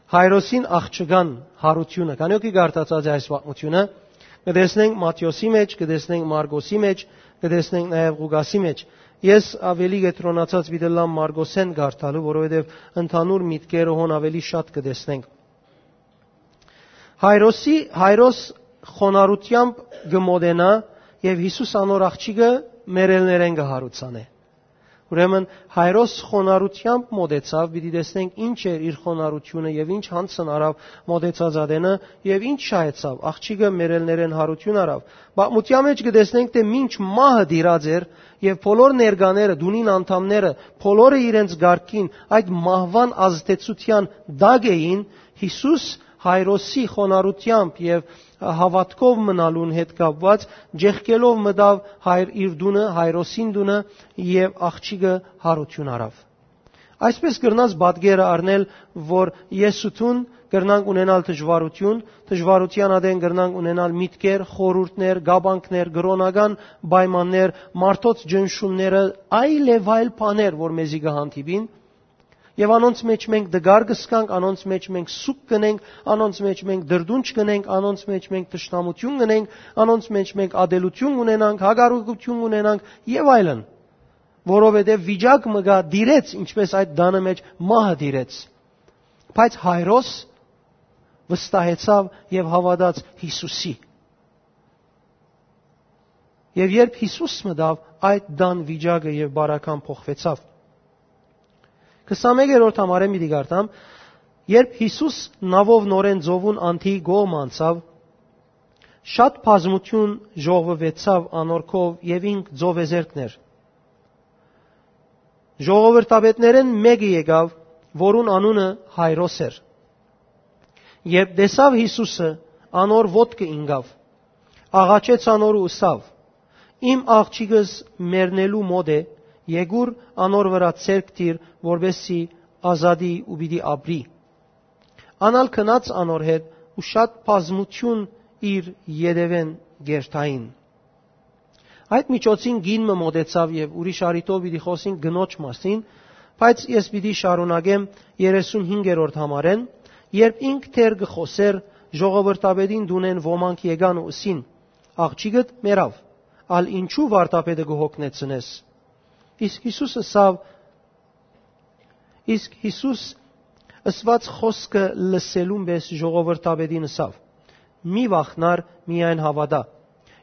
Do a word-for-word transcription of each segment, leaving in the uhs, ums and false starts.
Հայրոսին աղջկան յարութիւնը։ Քանի՞ օքի կարդացած է այս պատմութիւնը, կը տեսնենք Մատթէոսի մէջ, կը տեսնենք Մարկոսի մէջ, կը տեսնենք նաեւ Ղուկասի մէջ։ Ես աւելի կեդրոնացած պիտի ըլլամ Մարկոսէն կարդալու, որովհետեւ ընդհանուր միտքերը հոն աւելի շատ կը տեսնենք։ Հայրոսի, Հայրոս խոնարհութեամբ կը մոտենայ եւ Յիսուս անոր աղջիկը մեռելներէն կը յարուցանէ։ Ուրեմն Հայրոս խոնարհութեամբ մոտեցաւ, պիտի տեսնենք ինչ էր իր խոնարհութիւնը եւ ինչ յանցն առաւ մոտեցած ատենը եւ ինչ շահեցաւ, աղջիկը մեռելներէն յարութիւն առաւ։ Պատմութեան մէջ կը տեսնենք թէ մինչ մահը տիրած էր եւ բոլոր ներկաները, տունին անդամները, բոլորը իրենց կարգին այդ մահուան ազդեցութեան տակ էին, Յիսուս Հայրոսի խոնարհութեամբ եւ հաւատքով մնալուն հետ կապուած, ջեղկելով մտաւ հայր իր տունը, Հայրոսին տունը, եւ աղջիկը յարութիւն առաւ։ Այսպէս կրնաս պատկերը առնել, որ ես ու դուն կրնանք ունենալ դժուարութիւն, դժուարութեան ատեն կրնանք ունենալ միտքեր, խորհուրդներ, կապանքներ, կրօնական պայմաններ, մարդոց ճնշումները, այլեւայլ բաներ, որ մեզի կը հանդիպին, եւ անոնց մէջ մենք դգար կ'ըսկանք, անոնց մէջ մենք սուգ կ'ընենք, անոնց մէջ մենք դրդունջ կ'ընենք, անոնց մէջ մենք թշնամութիւն կ'ընենք, անոնց մէջ մենք ատելութիւն կ'ունենանք, հակառակութիւն կ'ունենանք եւ այլն, որովհետեւ վիճակ մը կայ տիրեց, ինչպէս այդ տանը մէջ մահը տիրեց։ Բայց Հայրոս վստահեցաւ եւ հաւատաց Յիսուսի։ Եւ երբ Յիսուս մտաւ, այդ տան վիճակը եւ բարական փոխուեցաւ։ Քսանմեկերորդ համարէն պիտի կարդամ. երբ Յիսուս նաւով նորէն ծովուն անդիի կողմը անցաւ, շատ բազմութիւն ժողվուեցաւ անոր քով եւ ինք ծովեզերքն էր։ Ժողովրդապետներէն մէկը եկաւ, որուն անունը Հայրոս էր։ Երբ տեսաւ Յիսուսը, անոր ոտքը ինկաւ, աղաչեց անոր ու ըսաւ. «Իմ աղջիկս մեռնելու մօտ է, եկուր անոր վրայ ձեռք դիր, որպեսզի ազատի ու պիտի ապրի»։ Ան ալ գնաց անոր հետ ու շատ բազմութիւն իր ետեւէն կ'երթային։ Այդ միջոցին կին մը մօտեցաւ եւ ուրիշ առիթով պիտի խօսին կնոջ մասին, բայց ես պիտի շարունակեմ երեսունհինգերորդ համարէն, երբ ինք դեռ կը խօսէր, ժողովրդապետին տունէն ոմանք եկան ու ըսին. «Աղջիկդ մեռաւ, ալ ինչու վարդապետը կը հոգնեցնես»։ Իսկ Յիսուս ըսաւ, իսկ Յիսուս ըսուած խօսքը լսելուն պէս ժողովրդապետին ըսաւ. «Մի վախնար, միայն հաւատա»։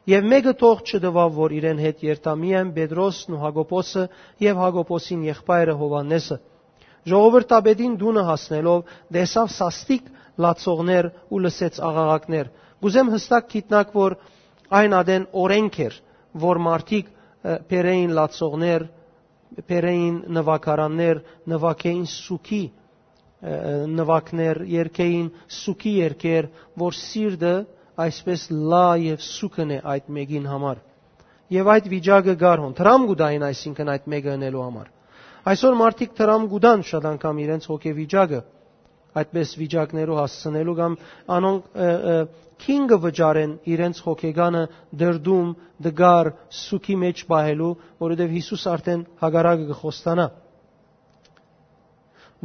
Եւ մէկը թող չտուաւ, որ իրեն հետ երթայ, միայն Պետրոսն ու Յակոբոսը եւ Յակոբոսին եղբայրը Յովհաննէսը։ Ժողովրդապետին տունը հասնելով, տեսաւ սաստիկ լացողներ ու լսեց աղաղակներ։ Կ'ուզեմ հստակ գիտնաք, որ այն ատեն օրէնք էր, որ մարդիկ, ը, բերէին լացողներ, բերէին նուագարաններ, նուագէին սուքի, ը, նուագներ, երգէին սուքի երգեր, որ սիրտը այսպես լա եւ սուգն է այդ մեկին համար։ Եւ այդ վիճակը կար հոն, դրամ կու տային, այսինքն, այդ մեկը ընելու համար։ Այսօր մարդիկ դրամ կու տան շատ անգամ իրենց հոգեվիճակը, այդպես վիճակներու հասցնելու կամ անոնք, ը, ը, քին կը վճարեն իրենց հոգեկանը դրդում, դգար, սուքի մէջ պահելու, որովհետեւ Յիսուս արդեն հակառակը կը խոստանայ։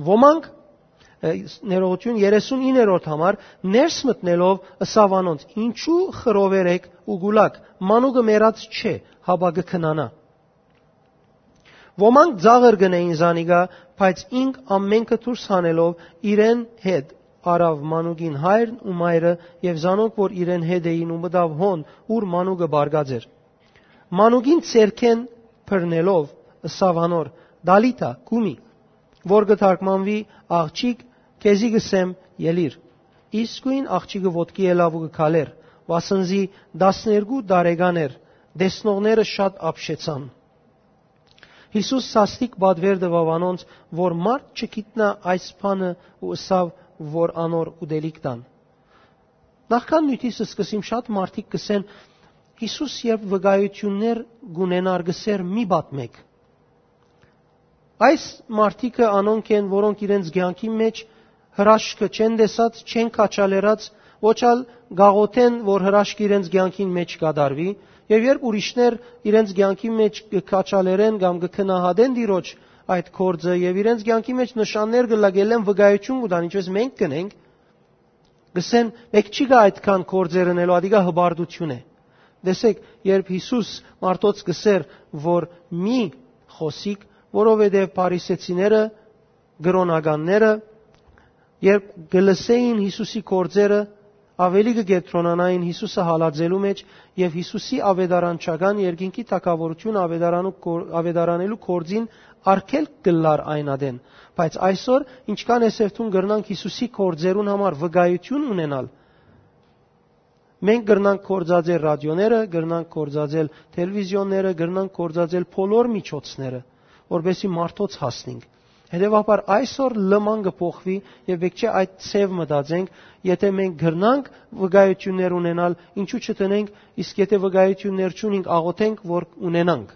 Ոմանք, ը, ներողություն, երեսունիններորդ համար, ներս մտնելով, ըսաւ անոնց. «Ինչու խռովեր էք ու կու լաք, մանուկը մեռած չէ, հապա կը քնանայ»։ Ոմանք ծաղր կ'ընէին զանիկա, բայց ինք ամէնքը դուրս հանելով իրեն հետ առաւ մանուկին հայրն ու մայրը եւ զանոնք, որ իրեն հետ էին, ու մտաւ հոն, ուր մանուկը պառկած էր։ Մանուկին ձեռքէն բռնելով, ըսաւ անոր. «Տալիթա, կումի», որ կը թարգմանուի. «Աղջիկ, քեզի կ'ըսեմ, ելիր»։ Իսկոյն աղջիկը ոտքի ելաւ ու կը քալէր, վասնզի տասներկու տարեկան էր, տեսնողները շատ ապշեցան։ Յիսուս սաստիկ պատուեր տուաւ անոնց, որ մարդ չգիտնայ այս բանը, ու ըսաւ, որ անոր ուտելիք տան։ Նախքան նիւթիս սկսիմ շատ մարդիկ կ'ըսեն. «Յիսուս երբ վկայութիւններ կ'ունենար, կ'ըսէր. "Մի պատմէք"»։ Այս մարդիկը անոնք են, որոնք իրենց կեանքին մէջ հրաշքը չեն տեսած, չեն քաջալերած, ոչ ալ կ'աղօթեն, որ հրաշքը իրենց կեանքին մէջ կատարուի, եւ երբ ուրիշներ իրենց կեանքին մէջ կը քաջալերեն կամ կը գնահատեն Տիրոջ այդ գործը եւ իրենց կեանքի մէջ նշաններ կը լագելեն վկայութիւն կու տան, ինչպես մենք կնենք, կսեն, «Մէկ չի գա այդքան գործեր ընելու, ադիկա հպարտութիւն է»։ Տեսեք, երբ Յիսուս մարդոց կսեր, որ մի խօսիկ, որովհետեւ փարիսեցիները, կրօնականները, երբ կը լսէին Յիսուսի գործերը, աւելի կը կեդրոնանային Յիսուսը հալածելու մէջ եւ Յիսուսի աւետարանչական երկինքի թագաւորութիւնը աւետարանու կոր-, աւետարանելու գործին արգելք կ'ըլլար այն ատեն։ Բայց այսօր, ինչքան է սերտուն կրնանք Յիսուսի գործերուն համար վկայութիւն ունենալ, մենք կրնանք գործածել ռադիոները, կրնանք գործածել թելեվիզիոնները, կրնանք գործածել բոլոր միջոցները, որպեսզի մարդոց հասնենք։ Հետեւաբար այսօր լման կը փոխուի եւ պէտք չէ այդ ձեւ մտածենք, եթե մենք կրնանք վկայութիւններ ունենալ, ինչու՞ չդնենք, իսկ եթե վկայութիւններ չունենք, աղօթենք, որ ունենանք։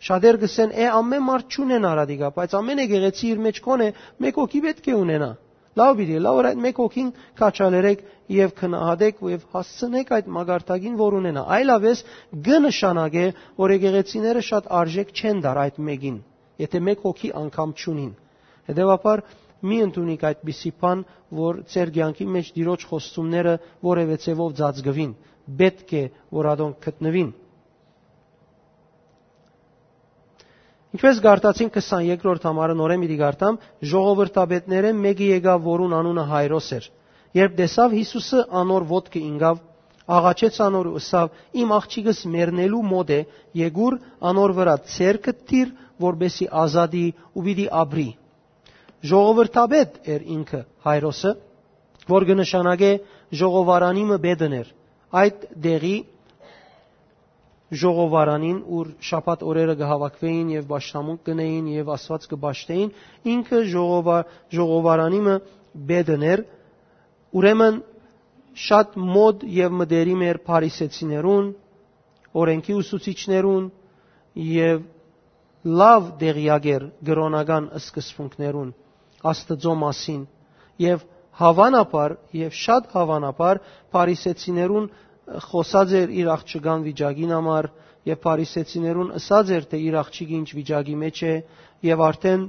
Շատեր կ'ըսեն, «Է, ամէն մարդ չունեն արադիկա, բայց ամէն եկեղեցի իր մէջ կ'ունի, մէկ հոգի պէտք է ունենայ»։ Լաւ պիտի ըլլայ, որ այդ մէկ հոգին քաջալերեք եւ գնահատեք եւ հասցնեք այդ մակարդակին, որ ունենայ։ Այլապէս կը նշանակէ, որ եկեղեցիները շատ արժէք չեն տար այդ մէկին, եթե մէկ հոգի անգամ չունին։ Հետեւաբար, մի ընդունիք այդպիսի բան, որ ձեր կեանքի մէջ Տիրոջ խոստումները որեւէ ձեւով ծածկուին, պէտք է, որ ատոնք գտնուին։ Ինչպես կարդացին քսաներկրորդ համարը, նորէն պիտի կարդամ, ժողովրդապետներէն մէկը եկաւ, որուն անունը Հայրոս էր։ Երբ տեսաւ Յիսուսը, անոր ոտքը ինկաւ, աղաչեց անոր ու ըսաւ. «Իմ աղջիկս մեռնելու մօտ է, եկուր անոր վրայ ձեռքդ դիր, որպեսզի ազատի ու պիտի ապրի»։ Ժողովրդապետ էր ինքը, Հայրոսը, որ կը նշանակէ ժողովարանի մը պետն էր։ Այդ տեղի ժողովարանին, ուր շաբաթ օրերը կը հաւաքուէին եւ պաշտամունք կ'ընէին եւ Աստուած կը պաշտէին, ինքը ժողովա-, ժողովարանի մը պետն էր, ուրեմն շատ մօտ եւ մտերիմ էր փարիսեցիներուն, օրէնքի ուսուցիչներուն եւ լաւ տեղեակ էր կրօնական սկզբունքներուն, Աստուծոյ մասին, եւ հաւանաբար, եւ շատ հաւանաբար փարիսեցիներուն խօսած էր իր աղջկան վիճակին համար, եւ փարիսեցիներուն ըսած էր, թէ իր աղջիկը ինչ վիճակի մէջ է, եւ արդեն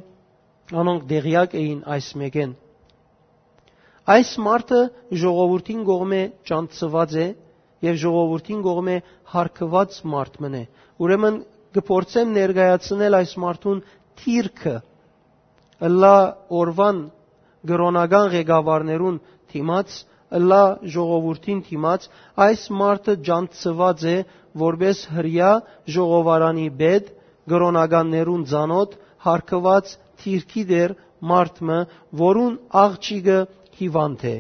անոնք տեղեակ էին այս մէկէն։ Այս մարդը ժողովուրդին կողմէ ճանչցուած է եւ ժողովուրդին կողմէ հարգուած մարդ մըն է։ Ուրեմն կը փորձեմ ներկայացնել այս մարդուն դիրքը, ըլլայ օրուան կրօնական ղեկավարներուն դիմաց, ըլլայ ժողովուրդին դիմաց, այս մարդը ճանչցուած է որպէս հրեայ ժողովարանի պետ, կրօնականներուն ծանօթ, հարգուած դիրքի տէր մարդ մը, որուն աղջիկը հիվանդ է։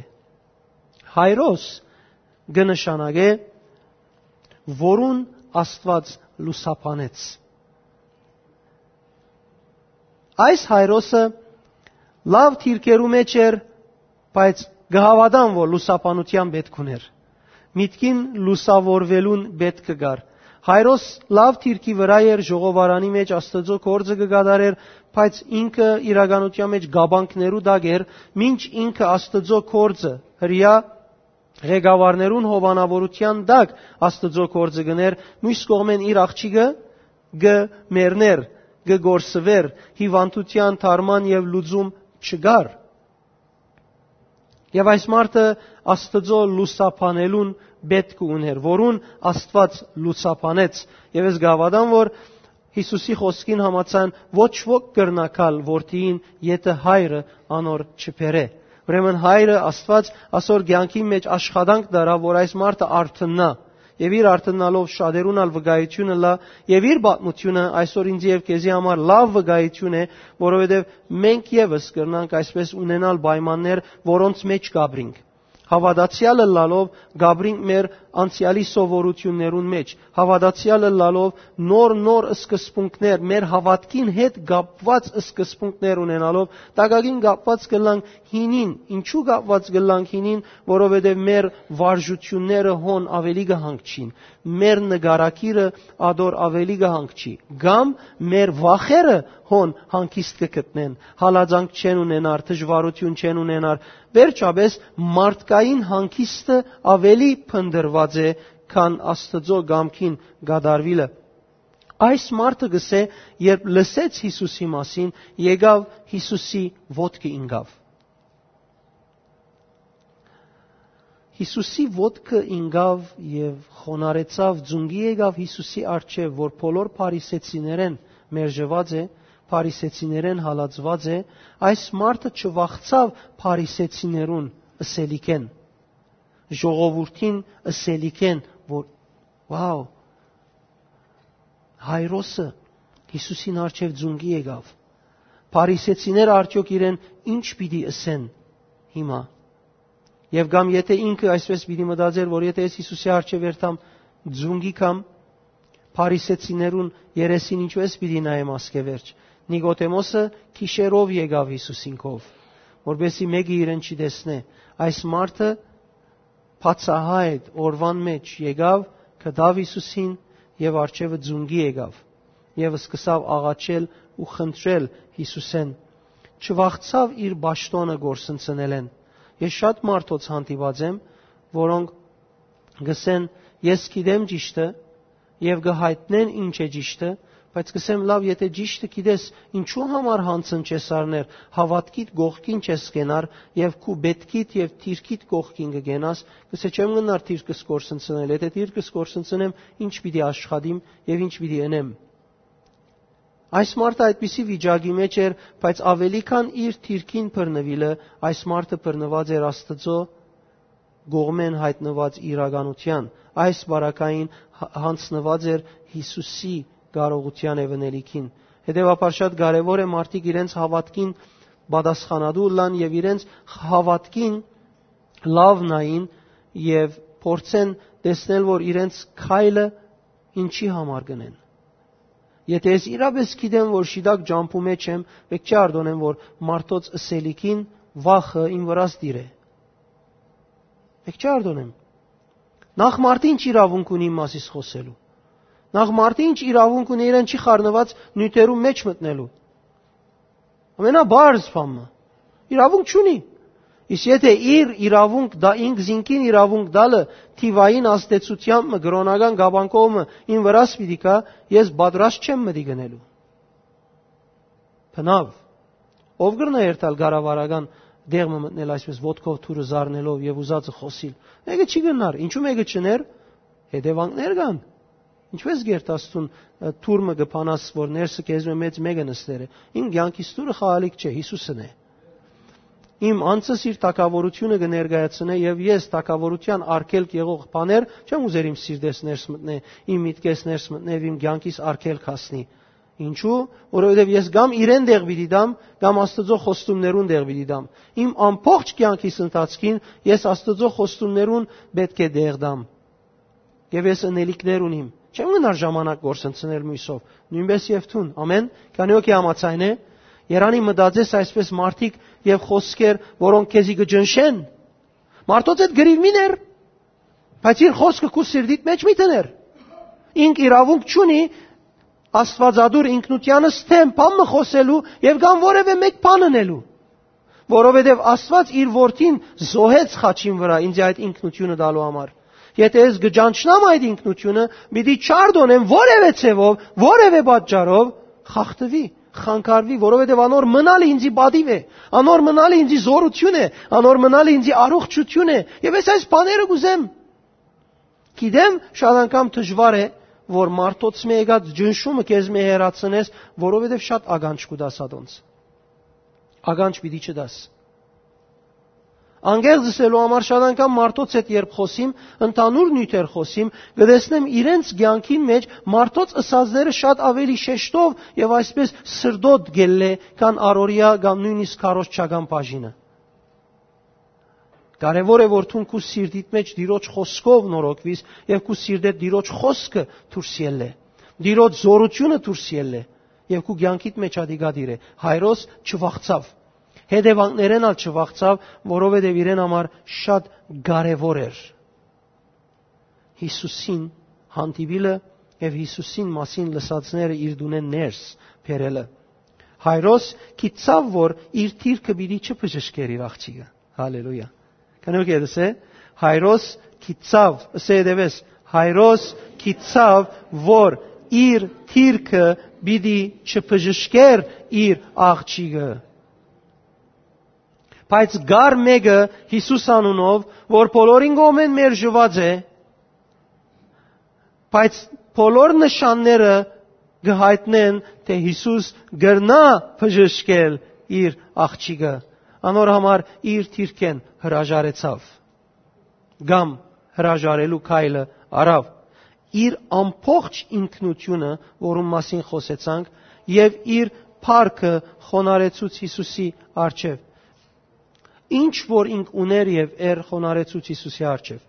Հայրոս կը նշանակէ, որուն Աստուած լուսաբանեց։ Այս Հայրոսը լաւ դիրքերու մէջ էր, բայց կը հաւատամ, որ լուսաբանութեան պէտք ունէր։ Միտքին լուսաւորուելուն պէտք կար։ Հայրոս լաւ դիրքի վրայ էր, ժողովարանի մէջ Աստուծոյ գործը կը կատարէր, բայց ինքը իրականութեան մէջ կապանքներու տակ էր, մինչ ինքը Աստուծոյ գործը, հրեայ ղեկավարներուն հովանաւորութեան տակ Աստուծոյ գործը կ'ընէր, միւս կողմէն իր աղջիկը կը մեռնէր, կը կորսուէր, հիվանդութեան դարման եւ լուծում չկար։ Եւ այս մարդը Աստուծոյ լուսաբանելուն պէտք ունէր, որուն Աստուած լուսաբանեց։ Եւ ես կհաւատամ, որ Յիսուսի խօսքին համաձայն ոչ ոք կրնայ գալ որդիին, եթէ հայրը անոր չբերէ։ Ուրեմն հայրը Աստուած ասոր կեանքի մէջ աշխատանք դարաւ, որ այս մարդը արթննայ։ Եւ իր արթննալով շատերուն ալ վկայութիւն ըլլայ, եւ իր պատմութիւնը այսօր ինձի եւ քեզի համար լաւ վկայութիւն է, որովհետեւ մենք եւս կրնանք այսպես ունենալ պայմաններ, որոնց մէջ կ'ապրինք։ Հաւատացեալ ըլլալով կ'ապրինք մեր անցեալի սովորութիւններուն մէջ, հաւատացեալ ըլլալով նոր-նոր սկզբունքներ, մեր հաւատքին հետ կապուած սկզբունքներ ունենալով, տակակին կապուած կ'ըլլանք հինին։ Ինչու՞ կապուած կ'ըլլանք հինին, որովհետեւ մեր վարժութիւնները հոն աւելի կը հանգչին, մեր նկարագիրը ատոր աւելի կը հանգչի, կամ մեր վախերը հոն հանգիստ կը գտնեն, հալածանք չեն ունենար, դժուարութիւն չեն ունենար։ Վերջապէս, մարդկային հանգիստը աւելի փնտռուած է, քան Աստուծոյ կամքին կատարուիլը։ Այս մարդը գսե, երբ լսեց Յիսուսի մասին, եկաւ Յիսուսի ոտքը ինկաւ։ Յիսուսի ոտքը ինկաւ եւ խոնարհեցաւ, ձունկի եկաւ Յիսուսի առջեւ, որ բոլոր փարիսեցիներէն մերժուած է, փարիսեցիներէն հալածուած է, այս մարդը չվախցաւ փարիսեցիներուն ըսելիքէն, ժողովուրդին ըսելիքէն, որ, վաու, Հայրոսը Յիսուսին առջեւ ձունկի եկաւ։ Փարիսեցիները արդեօք իրեն ի՞նչ պիտի ըսեն հիմա։ Եւ կամ եթե ինքը այսպես պիտի մտածեր, որ եթե ես Յիսուսի առջեւ երթամ ձունկի կամ փարիսեցիներուն երեսին ինչպես պիտի նայեմ ասկէ վերջ։ Նիկոդեմոսը գիշերով եկաւ Յիսուսին քով, որպեսզի մէկը իրեն չի տեսնէ։ Այս մարդը բացահայտ օրուան մէջ եկաւ, գտաւ Յիսուսին եւ առջեւը ձունկի եկաւ եւ սկսաւ աղաչել ու խնդրել Յիսուսէն։ Չվախցաւ իր պաշտօնը կորսնցնելէն։ Ես շատ մարդոց հանդիպած եմ, որոնք գսեն, «Ես գիտեմ ճիշդը», եւ կը յայտնեն ինչ է ճիշդը, բայց կսեմ, «Լաւ, եթե ճիշդը գիտես, ինչու համար յանցն չես առներ, հաւատքիդ կողքին չես կենար եւ քու պէտքիդ եւ դիրքիդ կողքին կը կենաս»։ Կսե, «Չեմ գնար դիրքս կորսնցնել, եթե դիրքս կորսնցնեմ, ինչ պիտի աշխատիմ եւ ինչ պիտի ընեմ»։ Այս մարդը այդպիսի վիճակի մէջ էր, բայց աւելի քան իր դիրքին բռնուիլը, այս մարդը բռնուած էր Աստուծոյ կողմէն յայտնուած իրականութեան։ Այս պարագային հ-, յանձնուած էր Յիսուսի կարողութեան եւ ընելիքին։ Հետեւաբար շատ կարեւոր է մարդիկ իրենց հաւատքին պատասխանատու ըլլան եւ իրենց հաւատքին լաւ նային եւ փորձեն տեսնել, որ իրենց քայլը ինչի համար կ'ընեն։ Եթե ես իրապէս գիտեմ, որ շիտակ ճամբու մէջ եմ, մէկ չի արտոնեմ, որ մարդոց ըսելիքին վախը իմ վրաս տիրէ։ Մէկ չի արտոնեմ։ Նախ մարդը ինչ իրաւունք ունի իմ մասիս խօսելու։ Նախ մարդը ինչ իրաւունք ունի իրեն չի խառնուած նիւթերու մէջ մտնելու։ Ամենաբարձ բան մը։ Իրաւունք չունի։ Իսկ եթե իր իրաւունք դա, ինք զինքին իրաւունք տալը, թիվային ազդեցութեամբ մը, կրօնական կապանքով մը իմ վրաս պիտի գայ, ես պատրաստ չեմ մտի գնելու։ Բնաւ, ով կրնայ երթալ կառավարական տեղ մը մտնել այսպես ոտքով թուրը զարնելով եւ ուզածը խօսիլ։ Մէկը չի գնար, ինչու մէկը չներ, հետեւանքներ կան։ Ինչպես կերթաս դուն, ը, թուր մը կը փանաս, որ ներսը քեզմէ մեծ մէկը նստեր է։ Իմ կեանքիս թուրը խաղալիք չէ, Յիսուսն է։ Իմ անձս իր թագաւորութիւնը կը ներկայացնէ եւ ես թագաւորութեան արգելք եղող բաներ չեմ ուզեր իմ սիրտես ներս մտնէ, իմ միտքես ներս մտնէ եւ իմ կեանքիս արգելք հասնի։ Ինչու՞, որովհետեւ ես կամ իրեն տեղ պիտի տամ, կամ Աստուծոյ խոստումներուն տեղ պիտի տամ։ Իմ ամբողջ կեանքիս ընթացքին ես Աստուծոյ խոստումներուն պէտք է տեղ տամ։ Եւ ես ընելիքներ ունիմ։ Չեմ գնար ժամանակ գործընծնել մոյսով, նոյնպես եւ դուն։ Ամեն, քանի օքի համաձայն է, երանի մտածես այսպես մարդիկ եւ խոսքեր, որոնք քեզի կը ջնշեն։ Մարդոց հետ գրիվ մի ներ, բայց իր խոսքը քու սիրտիդ մեջ մի դներ։ Ինք իրաւունք չունի աստվածատուր ինքնութեանս դեմ բան մը խօսելու եւ կամ որեւէ մէկ բան ընելու, որովհետեւ Աստուած իր որդին զոհեց խաչին վրայ ինձ այդ ինքնութիւնը տալու համար։ Եթե ես կը ճանչնամ այդ ինքնութիւնը, պիտի չարտոնեմ որեւէ ձեւով, որեւէ պատճառով խախտուի, խանգարուի, որովհետեւ անոր մնալը ինձի պատիւ է, անոր մնալը ինձի զորութիւն է, անոր մնալը ինձի առողջութիւն է, եւ ես այս բաները կ'ուզեմ։ Գիտեմ, շատ անգամ դժուար է, որ մարդոց մէ եկած ջնշումը քեզմէ հեռացնես, որովհետեւ շատ ականջ կու տաս ատոնց։ Ականջ պիտի չտաս։ Անկեղծ ըսելու համար, շատ անգամ մարդոց հետ երբ խօսիմ, ընդհանուր նիւթեր խօսիմ, կը տեսնեմ իրենց կեանքին մէջ մարդոց ըսածները շատ աւելի շեշտով եւ այսպես սրտոտ գելլէ, քան առօրեայ կամ նոյնիսկ քարոզչական բաժինը։ Կարեւոր է, որ դուն քու սիրտիդ մէջ Տիրոջ խօսքով նորոգուիս եւ քու սիրտէդ Տիրոջ խօսքը դուրս ելլէ, Տիրոջ զորութիւնը դուրս ելլէ եւ քու կեանքիդ մէջ ատիկա տիրէ։ Հայրոս չվախցաւ, հետեւանքներէն ալ չվախցաւ, որովհետեւ իրեն համար շատ կարեւոր էր Յիսուսին հանդիպիլը եւ Յիսուսին մասին լսածները իր տունէն ներս բերելը։ Հայրոս գիտցաւ, որ իր դիրքը պիտի չբժշկեր իր աղջիկը։ Հալելույա։ Քանի որ գիտես է, Հայրոս գիտցաւ, ըսե դեպես, Հայրոս գիտցաւ, որ իր դիրքը պիտի չբժշկեր իր աղջիկը։ Բայց կար մէկը Յիսուս անունով, որ բոլորին կողմէն մերժուած է, բայց բոլոր նշանները կը յայտնեն, թէ Յիսուս կրնայ բժշկել իր աղջիկը։ Անոր համար իր դիրքէն հրաժարեցաւ, կամ հրաժարելու քայլը առաւ։ Իր ամբողջ ինքնութիւնը, որուն մասին խօսեցանք, եւ իր փառքը խոնարհեցուց Յիսուսի առջեւ։ Ինչ որ ինք ունէր եւ էր, խոնարհեցուց Յիսուսի առջեւ։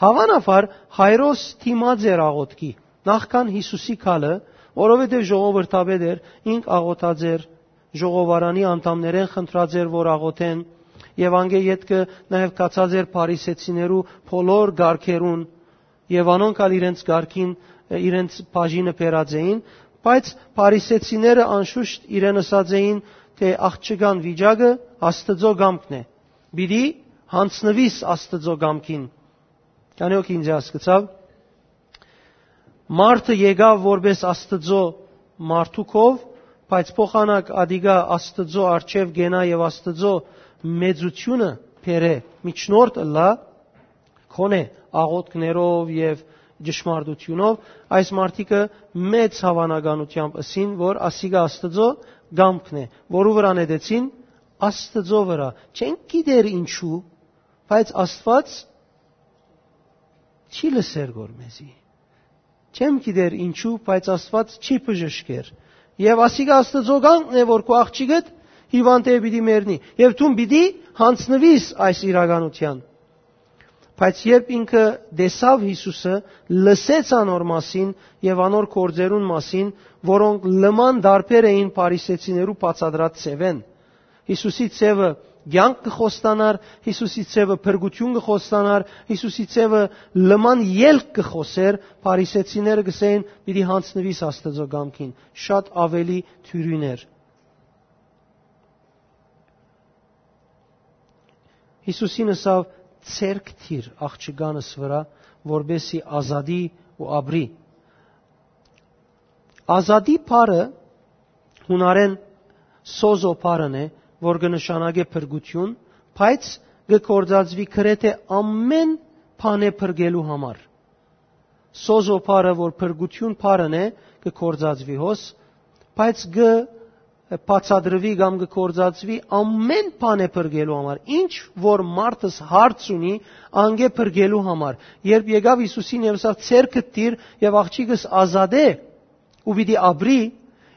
Հաւանաբար Հայրոս դիմած էր աղօթքի, նախքան Յիսուսի գալը, որովհետեւ ժողովրդապետ էր, ինք աղօթած էր, ժողովարանի անդամներէն խնդրած էր, որ աղօթեն, եւ անկէ ետքը նաեւ գացած էր Փարիսեցիներու բոլոր կարգերուն, եւ անոնք ալ իրենց կարգին, ը, իրենց բաժինը բերած էին, բայց Փարիսեցիները անշուշտ իրեն ըսած էին, թէ աղջկան վիճակը Աստուծոյ կամքն է, պիտի յանձնուիս Աստուծոյ կամքին։ Քանի՞ հոգի ինձ հասկցաւ։ Մարդը եկաւ որպես Աստուծոյ մարդուկով, բայց փոխանակ ատիկա Աստուծոյ առջեւ կենայ եւ Աստուծոյ մեծութիւնը բերէ, միջնորդ ըլլայ, գոնե աղօթքներով եւ ճշմարտութիւնով, այս մարդիկը մեծ հաւանականութեամբ ըսին, որ ասիկա Աստուծոյ կամքն է, որու վրայ նետեցին, Աստուծոյ վրայ։ Չենք գիտեր ինչու, բայց Աստուած չի լսեր գոր մեզի։ Չեմ գիտեր ինչու, բայց Աստուած չի բժշկեր։ Եւ ասիկա Աստուծոյ կամքն է, որ քու աղջիկդ հիւանդ է, պիտի մեռնի։ Եւ դուն պիտի յանձնուիս այս իրականութեան։ Բայց երբ ինքը տեսաւ Յիսուսը, լսեց անոր մասին եւ անոր գործերուն մասին, որոնք լման տարբեր էին Փարիսեցիներու բացատրած ձեւէն, Յիսուսի ձևը կեանք կը խոստանար, Յիսուսի ձևը փրկութիւն կը խոստանար, Յիսուսի ձևը լման ելք կը խօսեր, Փարիսեցիները կ'ըսէին, «Պիտի յանձնուիս Աստուծոյ կամքին», շատ աւելի դիւրին էր։ Յիսուսին ըսաւ. «Ձեռք դիր աղջկանս վրայ, որպէսզի ազատի ու ապրի»։ Ազատի բառը յունարէն սոզո բառն է, որ կը նշանակէ փրկութիւն, բայց կը գործածուի գրեթէ ամէն բանէ փրկելու համար։ Սոզո բառը, որ փրկութիւն բառն է, կը գործածուի հոս, բայց կը բացատրուի կամ կը գործածուի ամէն բանէ փրկելու համար։ Ինչ որ մարդս հարց ունի, անկէ փրկելու համար։ Երբ եկաւ Յիսուսին եւ ասաւ. «Ձեռքդ դիր եւ աղջիկս ազատէ ու պիտի ապրի»,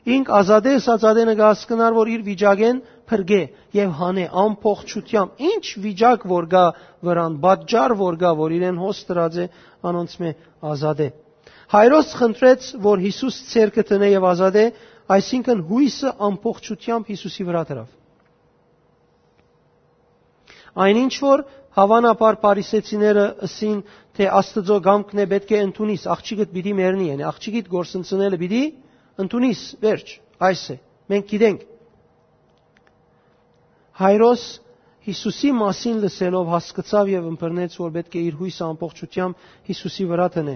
ինք ազատէ ըսած ատենը կը հասկնար, որ իր վիճակէն փրկէ եւ հանէ ամբողջութեամբ։ Ինչ վիճակ որ կայ վրան, պատճառ որ կայ, որ իրեն հոս դրած է, անոնցմէ ազատէ։ Հայրոս խնդրեց, որ Յիսուս ձեռքը դնէ եւ ազատէ, այսինքն՝ յոյսը ամբողջութեամբ Յիսուսի վրայ դրաւ։ Այն ինչ որ, հաւանաբար, Փարիսեցիները ըսին, թէ Աստուծոյ կամքն է, պէտք է ընդունիս, աղջիկդ պիտի մեռնի, յանի աղջիկիդ կորսնցնելը պիտի ընդունիս, վերջ, այս է, մենք գիտենք։ Հայրոս Յիսուսի մասին լսելով՝ հասկցաւ եւ ըմբռնեց, որ պէտք է իր յոյսը ամբողջութեամբ Յիսուսի վրայ դնէ։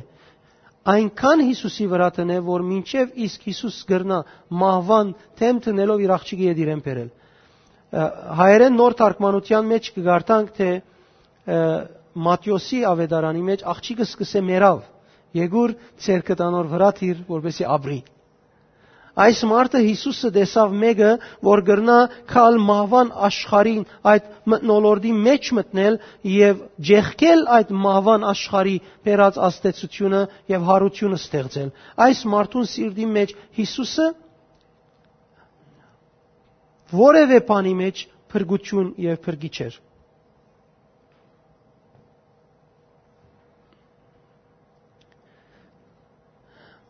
Այնքան Յիսուսի վրայ դնէ, որ մինչեւ իսկ Յիսուս կրնայ մահուան դէմ դնելով իր աղջիկը ետ իրեն բերել։ Ը, հայերէն նոր թարգմանութեան մէջ կը կարդանք, թէ, ը, Մատթէոսի աւետարանի մէջ աղջիկը սկսե մեռաւ, եկուր ձեռքդ անոր վրայ դիր, որպեսզի ապրի։ Այս մարդը Յիսուսը տեսաւ մէկը, որ կրնայ գալ մահուան աշխարհին, այդ մթնոլորտի մէջ մտնել եւ ջեղկել այդ մահուան աշխարհի բերած ազդեցութիւնը եւ յարութիւնը ստեղծել։ Այս մարդուն սիրտի մէջ Յիսուսը որեւէ բանի մէջ փրկութիւն եւ փրկիչ էր։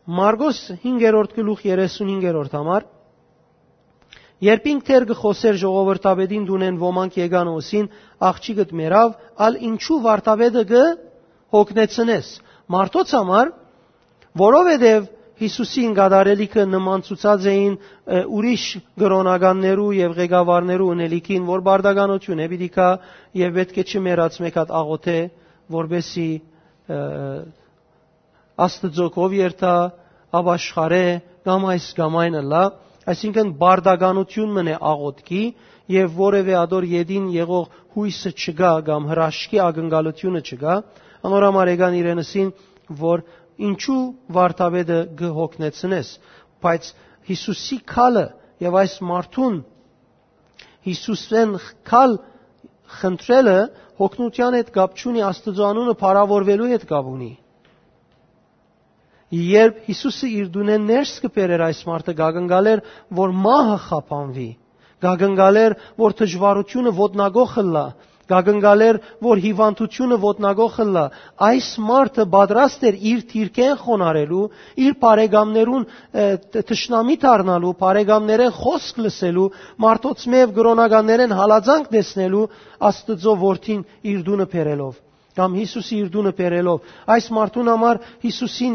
Մարկոս հինգերորդ գլուխ երեսունհինգերորդ համար։ Երբ ինք դեռ կը խօսէր, ժողովրդապետին տունէն ոմանք եկան ու ըսին. «Աղջիկդ մեռաւ, ալ ինչու վարդապետը կը հոգնեցնես»։ Մարդոց համար, որովհետեւ Յիսուսին կատարելիքը նմանցուցած էին, ը, ուրիշ կրօնականներու եւ ղեկավարներու ընելիքին, որ բարդականութիւն է պիտի գայ եւ պէտք է չմեռած մէկ հատ աղօթէ, որպեսզի, ը, Աստուծոյ կով երթայ, ապաշխարէ, կամ այս կամ այն ըլլայ, այսինքն պարտականութիւն մըն է աղօթքի, եւ որեւէ ատոր ետին եղող յոյսը չկայ կամ հրաշքի ակնկալութիւնը չկայ, անոր համար եկան իրեն ըսին, որ ինչու վարդապետը կը հոգնեցնես, բայց Յիսուսի քալը եւ այս մարդուն Յիսուսէն քալ խնդրելը հոգնութեան հետ կապ չունի, Աստուծոյ անունը փառաւորուելու հետ կապ ունի։ Երբ Յիսուսը իր տունէն ներս կը բերէր այս մարդը, կակնկալէր, որ մահը խափանուի, կակնկալէր, որ դժուարութիւնը ոտնակոխ ըլլայ, կակնկալէր, որ հիւանդութիւնը ոտնակոխ ըլլայ։ Այս մարդը պատրաստ էր իր դիրքէն խոնարհելու, իր բարեկամներուն, ը, տ-, թշնամի դառնալու, բարեկամներէն խօսք լսելու, մարդոցմէ եւ կրօնականներէն հալածանք տեսնելու, Աստուծոյ որդին իր տունը բերելով, կամ Յիսուսը իր տունը բերելով։ Այս մարդուն համար Յիսուսին,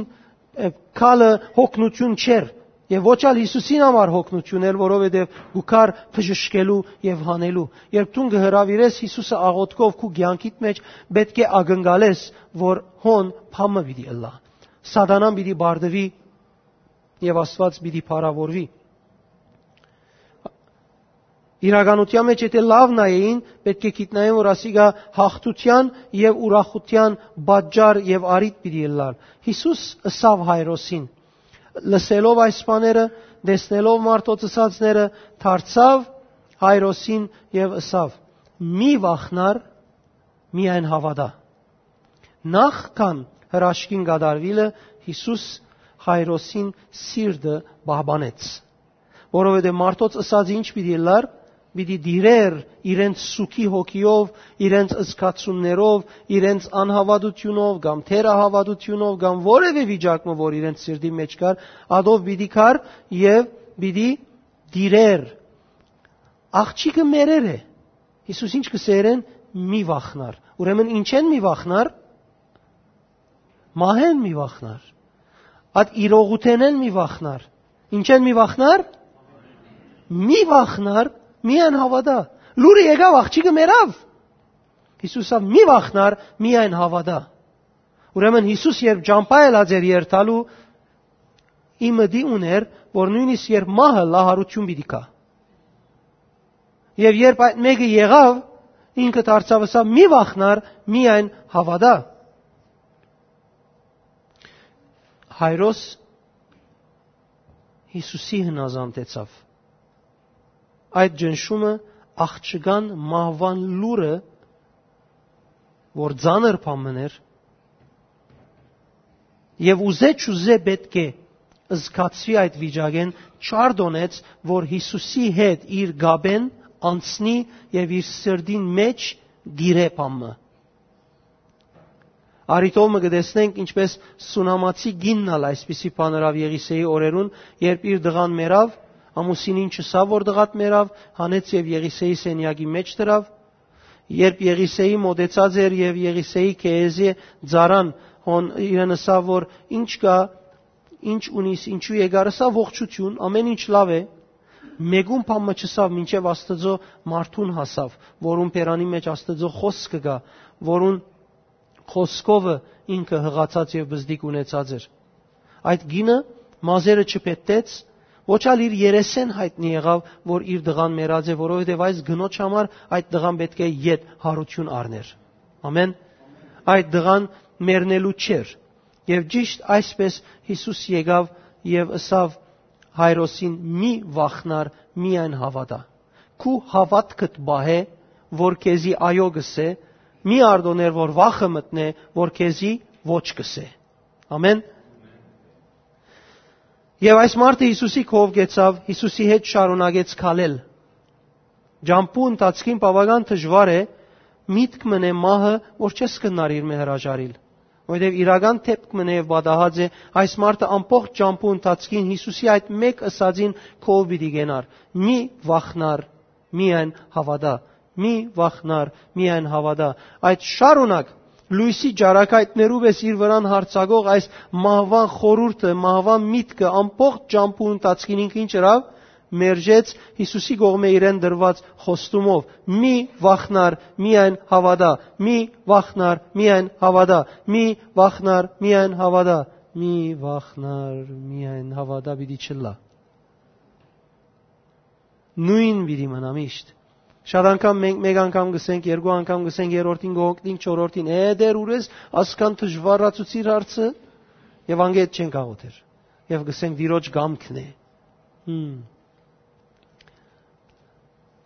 ը, քալը հոգնութիւն չէր, եւ ոչ ալ Յիսուսին համար հոգնութիւն էր, որովհետեւ կու գար բժշկելու եւ հանելու։ Երբ դուն կը հրաւիրես Յիսուսը աղօթքով քու կեանքիդ մէջ, պէտք է ակնկալես, որ հոն բան մը պիտի ըլլայ։ Սատանան պիտի բարդուի եւ Աստուած պիտի փառաւորուի։ Իրականութեան մէջ եթէ լաւ նայէին, պէտք է գիտնային, որ ասիկա յաղթութեան եւ ուրախութեան պատճառ եւ առիթ պիտի ըլլար։ Յիսուս ըսաւ Հայրոսին, լսելով այս բաները, տեսնելով մարդոց ըսածները, դարձաւ Հայրոսին եւ ըսաւ. «Մի վախնար, միայն հաւատա»։ Նախքան հրաշքին կատարուիլը, Յիսուս Հայրոսին սիրտը պահպանեց, որովհետեւ մարդոց ըսածը ինչ պիտի ըլլար, պիտի տիրէր իրենց սուքի հոգիով, իրենց զգացումներով, իրենց անհաւատութիւնով կամ թերահաւատութիւնով կամ որեւէ վիճակ մը, որ իրենց սիրտի մէջ կար, ատով պիտի գար եւ պիտի տիրէր։ Աղջիկը մեռեր է։ Յիսուս ինչ կ'ըսէր իրեն, մի վախնար։ Ուրեմն ինչէն մի վախնար, մահէն մի վախնար, այդ իրողութենէն մի վախնար։ Ինչէն մի վախնար, մի վախնար, միայն հաւատա։ Լուրը եկաւ, աղջիկը մեռաւ։ Յիսուս ասաւ, մի վախնար, միայն հաւատա։ Ուրեմն Յիսուս երբ ճամբայ ելած էր երթալու, ի մտի ունէր, որ նոյնիսկ երբ մահը լահարութիւն պիտի գայ։ Եւ երբ այդ մէկը եղաւ, ինքը դարձաւ ըսաւ, մի վախնար, միայն հաւատա։ Հայրոս Յիսուսի հնազանդեցաւ։ Այդ ճնշումը աղջկան մահուան լուրը, որ ծանր բան մըն էր, եւ ուզէ չուզէ պէտք է զգացուի այդ վիճակէն, չարդոնեց, որ Յիսուսի հետ իր կապէն անցնի եւ իր սրտին մէջ տիրէ բան մը։ Առիթով մը կը տեսնենք, ինչպէս Սունամացի կինն ալ այսպիսի բան ըրաւ Եղիսեի օրերուն, երբ իր տղան մեռաւ, ամուսինին չըսաւ, որ տղադ մեռաւ, հանեց եւ Եղիսեի սենեակի մէջ դրաւ։ Երբ Եղիսեի մօտեցած էր եւ Եղիսեի Քեեզի ծառան հոն իրեն ըսաւ, որ ինչ կա, ինչ ունիս, ինչու եկար, ըսաւ, ողջություն, ամեն ինչ լաւ է։ Մեկուն բան մը չըսաւ, մինչեւ Աստուծոյ մարդուն հասաւ, որուն բերանի մէջ Աստուծոյ խօսքը կայ, որուն խօսքովը ինքը յղացած եւ բզդիկ ունեցած էր։ Այդ կինը մազերը չփետտեց, ոչ ալ իր երեսէն յայտնի եղաւ, որ իր տղան մեռած է, որովհետեւ այս կնոջ համար այդ տղան պէտք է ետ հարութիւն առներ։ Ամեն։ Այդ տղան մեռնելու չէր։ Եւ ճիշդ այսպէս Յիսուս եկաւ եւ ըսաւ Հայրոսին. «Մի վախնար, միայն հաւատա։ Քու հաւատքդ պահէ, որ քեզի այո կ'ըսէ, մի արտոներ որ վախը մտնէ, որ քեզի ոչ կ'ըսէ»։ Ամեն։ Եւ այս մարդը Յիսուսի քով գեցաւ, Յիսուսի հետ շարունակեց քալել։ Ճամբու ընթացքին բաւական դժուար է միտք մնե մահը, որ չես կրնար իրմէ հրաժարիլ, որովհետեւ իրական դէպք մնե եւ պատահած է, այս մարդը ամբողջ ճամբու ընթացքին Յիսուսի այդ մէկ ըսածին քով պիտի գնար. «Մի վախնար, միայն հաւատա, մի վախնար, միայն հաւատա»։ Այդ շարունակ լոյսի ճառագայթներու պէս իր վրան յարձակող այս մահուան խորհուրդը, մահուան միտքը ամբողջ ճամբու ընթացքին ինքը ինչ ըրաւ, մերժեց Յիսուսի կողմէ իրեն դրուած խոստումով. «Մի վախնար, միայն հաւատա, մի վախնար, միայն հաւատա, մի վախնար, միայն հաւատա»։ «Մի վախնար, միայն հաւատա» պիտի չըլլայ։ Նոյն պիտի մնայ միշտ։ Շատ անգամ մենք, մեկ անգամ կ'ըսենք, երկու անգամ կ'ըսենք, երրորդին կ'օգնենք, չորրորդին, «Է, դեր, ուրես ասկան դժուարացուցիր հարցը»։ Եւ անգետ չենք աղոթեր։ Եւ կ'ըսենք, «Տիրոջ կամքն է»։ Հմ։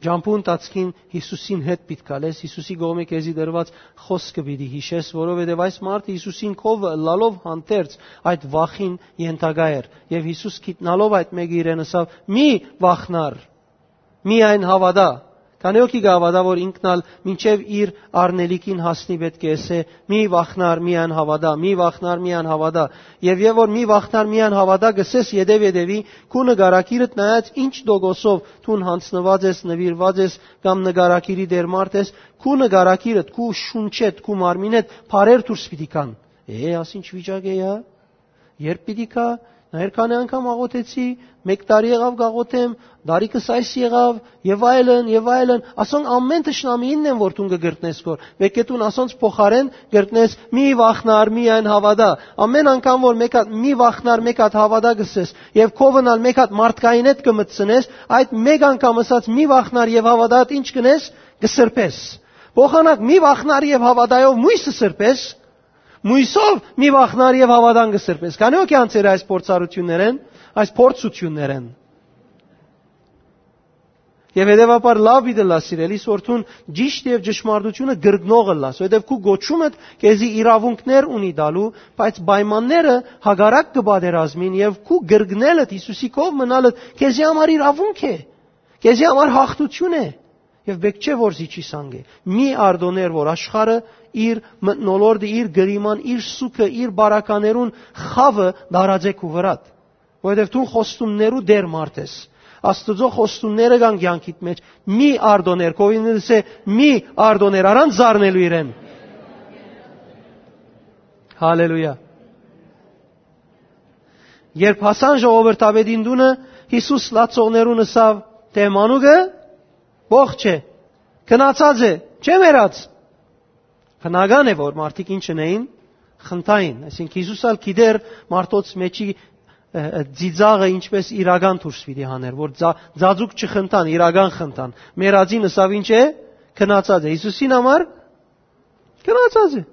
Ճամբու ընթացքին Յիսուսին հետ պիտի գալես, Յիսուսի կողմէ քեզի տրուած խօսքը պիտի յիշես, որովհետեւ այս մարդը Յիսուսին քովը ըլլալով հանդերձ այդ վախին ենթակայ էր։ Եւ Յիսուս գիտնալով այդ մէկը իրեն ըսաւ. «Մի վախնար, միայն հաւատա»։ Քանի՞ հոգի կը հաւատայ, որ ինքն ալ մինչեւ իր առնելիքին հասնի, պէտք է ըսէ. «Մի վախնար, միայն հաւատա, մի վախնար, միայն հաւատա»։ Եւ, եւ որ «Մի վախնար, միայն հաւատա» կ'ըսես ետեւ ետեւի, քու նկարագիրդ նայած ինչ տոկոսով դուն յանձնուած ես, նուիրուած ես կամ նկարագիրի դեր մարդ ես, քու նկարագիրդ, քու շունչդ, քու մարմինդ փարեր դուրս պիտի գան։ «Է, աս ինչ վիճակ է, ա, երբ պիտի գայ, նայեր քանի՞ անգամ աղոթեցի, մէկ տարի եղաւ կ'աղոթեմ, դարիքս այս եղաւ», եւ այլն, եւ այլն։ Ասոնք ամէն թշնամիինն են, որ դուն կը կրտնես քոր։ Պէտք է դուն ասոնց փոխարէն կրտնես. «Մի վախնար, միայն հաւատա»։ Ամէն անգամ որ մէկ հատ «Մի վախնար, միայն հաւատա» կ'ըսես, եւ քովն ալ մէկ հատ մարդկայինդ կը մտցնես, այդ մէկ անգամ ըսած «Մի վախնար եւ հաւատա»-դ ինչ կ'ընես, կը սրբես։ Փոխանակ «Մի վախնար եւ հաւատա»-ով մոյսը սրբես, մոյսով «Մի վախնար եւ հաւատան» կը սրբես։ Քանի՞ հոգի անցեր այս փորձառութիւններէն, այս փորձութիւններէն։ Եւ հետեւաբար լաւ պիտի ըլլայ, սիրելիս, որ դուն ճիշդ եւ ճշմարտութիւնը կրկնող ըլլաս, որովհետեւ քու կոչումդ քեզի իրաւունքներ ունի տալու, բայց պայմանները հակառակ կը պատերազմին, եւ քու կրկնելդ, Յիսուսի քով մնալդ քեզի համար իրաւունք է, քեզի համար յաղթութիւն է, եւ պէտք չէ որ զիջիս անգէ։ Մի արտօներ որ աշխարհը իր մթնոլորտը, իր կլիման, իր սուքը, իր բարականերուն խաւը դարածէ քու վրադ, որովհետեւ դուն խոստումներու դեր մարդ ես։ Աստուծոյ խոստումները կան կեանքիդ մէջ։ Մի արտօներ, քովին ըսէ, մի արտօներ, առանց զարնելու իրեն։ Հալելույա։ Երբ հասան ժողովրդապետին տունը, Յիսուս լացողներուն ըսաւ. «Թէ մանուկը ողջ է, քնացած է, չէ մեռած»։ Բնական է որ մարդիկ ինչ ընէին, խնդային, այսինքն Յիսուս ալ գիտեր մարդոց մեջի, ը, ը, ծիծաղը ինչպես իրական դուրս պիտի հաներ, որ ձա-, ձաձուկ չխնդան, իրական խնդան։ Մեռածին ըսաւ. «Ինչ է, քնացած է»։ Յիսուսին համար քնացած է։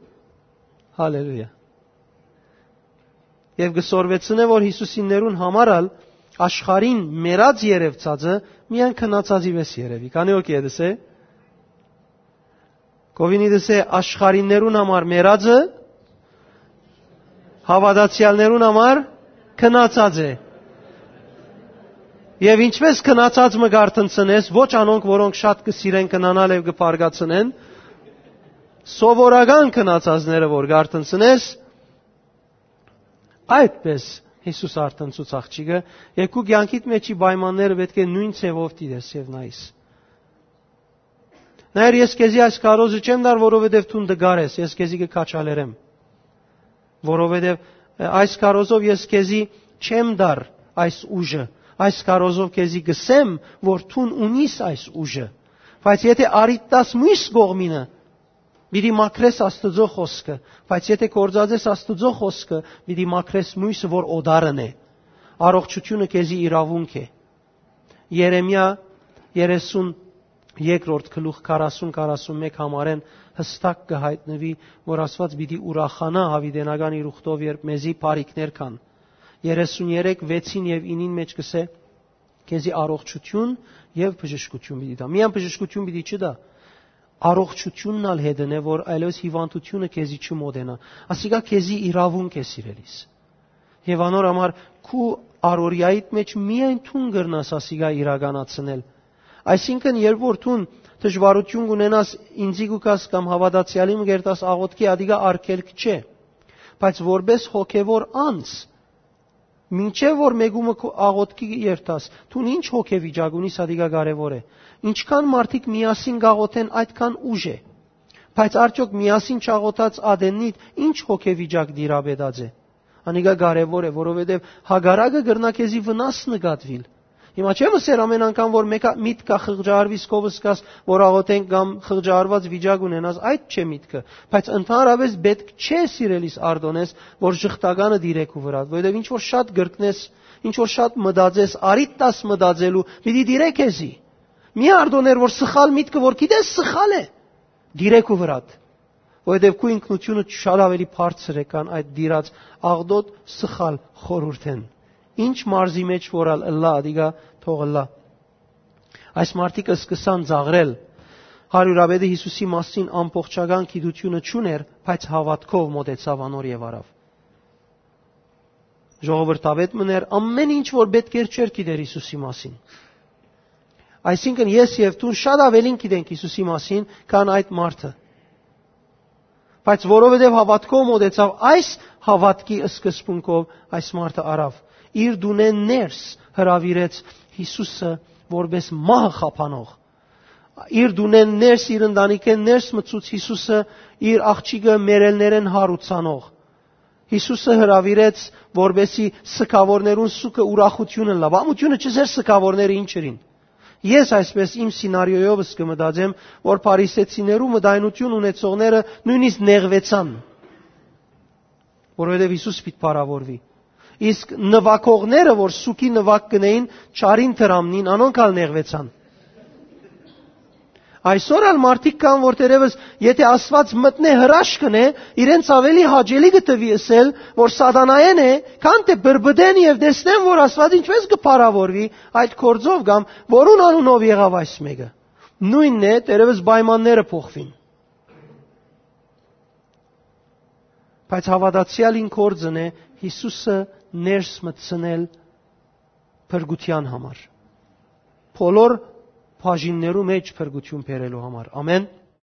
Հալելույա։ Եւ կը սորվեցնէ, որ Յիսուսիններուն համար ալ աշխարհին մեռած երեւցածը միայն քնացածի վէս երեւի։ Քանի՞ հոգի է դսե։ Քովինի դսե, աշխարհիններուն համար մեռածը հաւատացեալներուն համար քնացած է։ Եւ ինչպես քնացած մը կ'արթնցնես, ոչ անոնք, որոնք շատ կը սիրեն քնանալ եւ կը բարկացնեն, սովորական քնացածները որ կ'արթնցնես, այդպես Յիսուս արթնցուց աղջիկը, եւ քու կեանքիդ մեջի պայմանները պէտք է նոյն ձեւով դիտես եւ նայես։ Նայր, ես քեզի այս քարոզը չեմ տար, որովհետեւ դուն տկար ես, ես քեզի կը քաջալերեմ, որովհետեւ, ը, այս քարոզով ես քեզի չեմ տար այս ուժը, այս քարոզով քեզի կ'ըսեմ, որ դուն ունիս այս ուժը, բայց եթէ առիթ տաս մյուս կողմինը, պիտի մաքրես Աստուծոյ խօսքը, բայց եթէ գործածես Աստուծոյ խօսքը, պիտի մաքրես մոյսը, որ օտարն է։ Առողջութիւնը քեզի իրաւունք է։ Երեմիա երեսուն երկրորդ գլուխ քառասուն, քառասուն մէկ համարէն յստակ կը յայտնուի, որ Աստուած պիտի ուրախանայ յաւիտենական իր ուխտով, երբ մեզի բարիքներ կան։ Երեսուն երեք, վեցին եւ ինին մէջ կ'ըսէ. «Քեզի առողջութիւն եւ բժշկութիւն պիտի տայ»։ Միայն բժշկութիւն պիտի չտայ, առողջութիւնն ալ հետն է, որ այլեւս հիւանդութիւնը քեզի չմոտենայ։ Ասիկա քեզի իրաւունք է, սիրելիս։ Եւ անոր համար քու առօրեայիդ մէջ միայն դուն կրնաս ասիկա իրականացնել։ Այսինքն, երբ որ դուն դժուարութիւն կունենաս, ինծի կու գաս կամ հաւատացեալի մը կերտաս աղօթքի, ադիկա արգելք չէ։ Բայց որպես հոգեվոր անձ, մինչեւ որ մեկումը քու աղօթքի երթաս, դուն ինչ հոգեվիճակ ունիս, ադիկա կարեւոր է։ Ինչքան մարդիկ միասին կաղոթեն, այդքան ուժ է։ Բայց արդյոք միասին չաղոթած ատեննիդ ինչ հոգեվիճակ տիրապետած է։ Անիկա կարեւոր է, որովհետեւ հակառակը կրնայ քեզի վնաս նկատուիլ։ Հիմա չեմ ըսեր ամեն անգամ, որ մեկը միտքը խղճահարվի, քովս կաս, որ աղոթենք կամ խղճահարված վիճակ ունենաս, այդ չէ միտքը, բայց ընդհանրապես պետք չէ, սիրելիս, արտոնես, որ ժխտականը դիրեք ու վրատ, որովհետև ինչ որ շատ գրկնես, ինչ որ շատ մտածես, արիտ տաս մտածելու, պիտի դիրեք էզի։ Մի արտոներ, որ սխալ միտքը, որ գիտես սխալ է, դիրեք ու վրատ, որովհետև քու ինքնությունը շատ ավելի բարձր է, քան այդ դիրած աղտոտ սխալ խորհուրդեն։ Ինչ մարզի մեջ որ ալ ըլլա, ադիկա թող ըլլա։ Այս մարդիկը սկսան ծաղրել։ Հարիւրապետը Յիսուսի մասին ամբողջական գիտությունը չունէր, բայց հաւատքով մօտեցաւ անոր եւ առաւ։ Ժողովրդավետ մըն էր, ամեն ինչ որ պետք էր, չէր գիտեր Յիսուսի մասին։ Այսինքն, ես եւ դուն շատ ավելին գիտենք Յիսուսի մասին, քան այդ մարդը։ Բայց որովհետեւ հաւատքով մօտեցաւ, այս հաւատքի սկզբունքով այս մարդը առաւ։ Իր դունէն ներս հրաւիրեց Յիսուսը որպես մահը խափանող։ Իր դունէն ներս, իր ընտանիքէն ներս մցուց Յիսուսը, իր աղջիկը մեռելներէն հարուցանող։ Յիսուսը հրաւիրեց, որպեսզի սգաւորներուն սուքը ուրախութիւն ըլլայ։ Ամութիւնը չզեր սգաւորները ինչ ըրին։ Ես այսպես իմ սինարիոյովս կը մտածեմ, որ փարիսեցիներու մտայնութիւն ունեցողները նոյնիսկ նեղուեցան, որովհետեւ Յիսուս պիտի փառաւորուի։ Իսկ նուագողները, որ սուքի նուագ կ'ընէին, չարին դրամնին, անոնք ալ նեղուեցան։ Այսօր ալ մարդիկ կան, որ թերեւս, եթե Աստուած մտնէ հրաշք ընէ, իրենց ավելի հաճելի կը թուի ըսել, որ սատանայէն է, քան թէ բրբտեն եւ տեսնեն, որ Աստուած ինչպես կը փառաւորուի այդ գործով կամ որուն անունով եղաւ այս մեկը։ Նոյնն է, թերեւս պայմանները փոխուին։ Բայց հաւատացեալին գործն է Յիսուսը ներս մտցնել փրկութեան համար, բոլոր բաժիններու մէջ փրկութիւն բերելու համար։ Ամեն։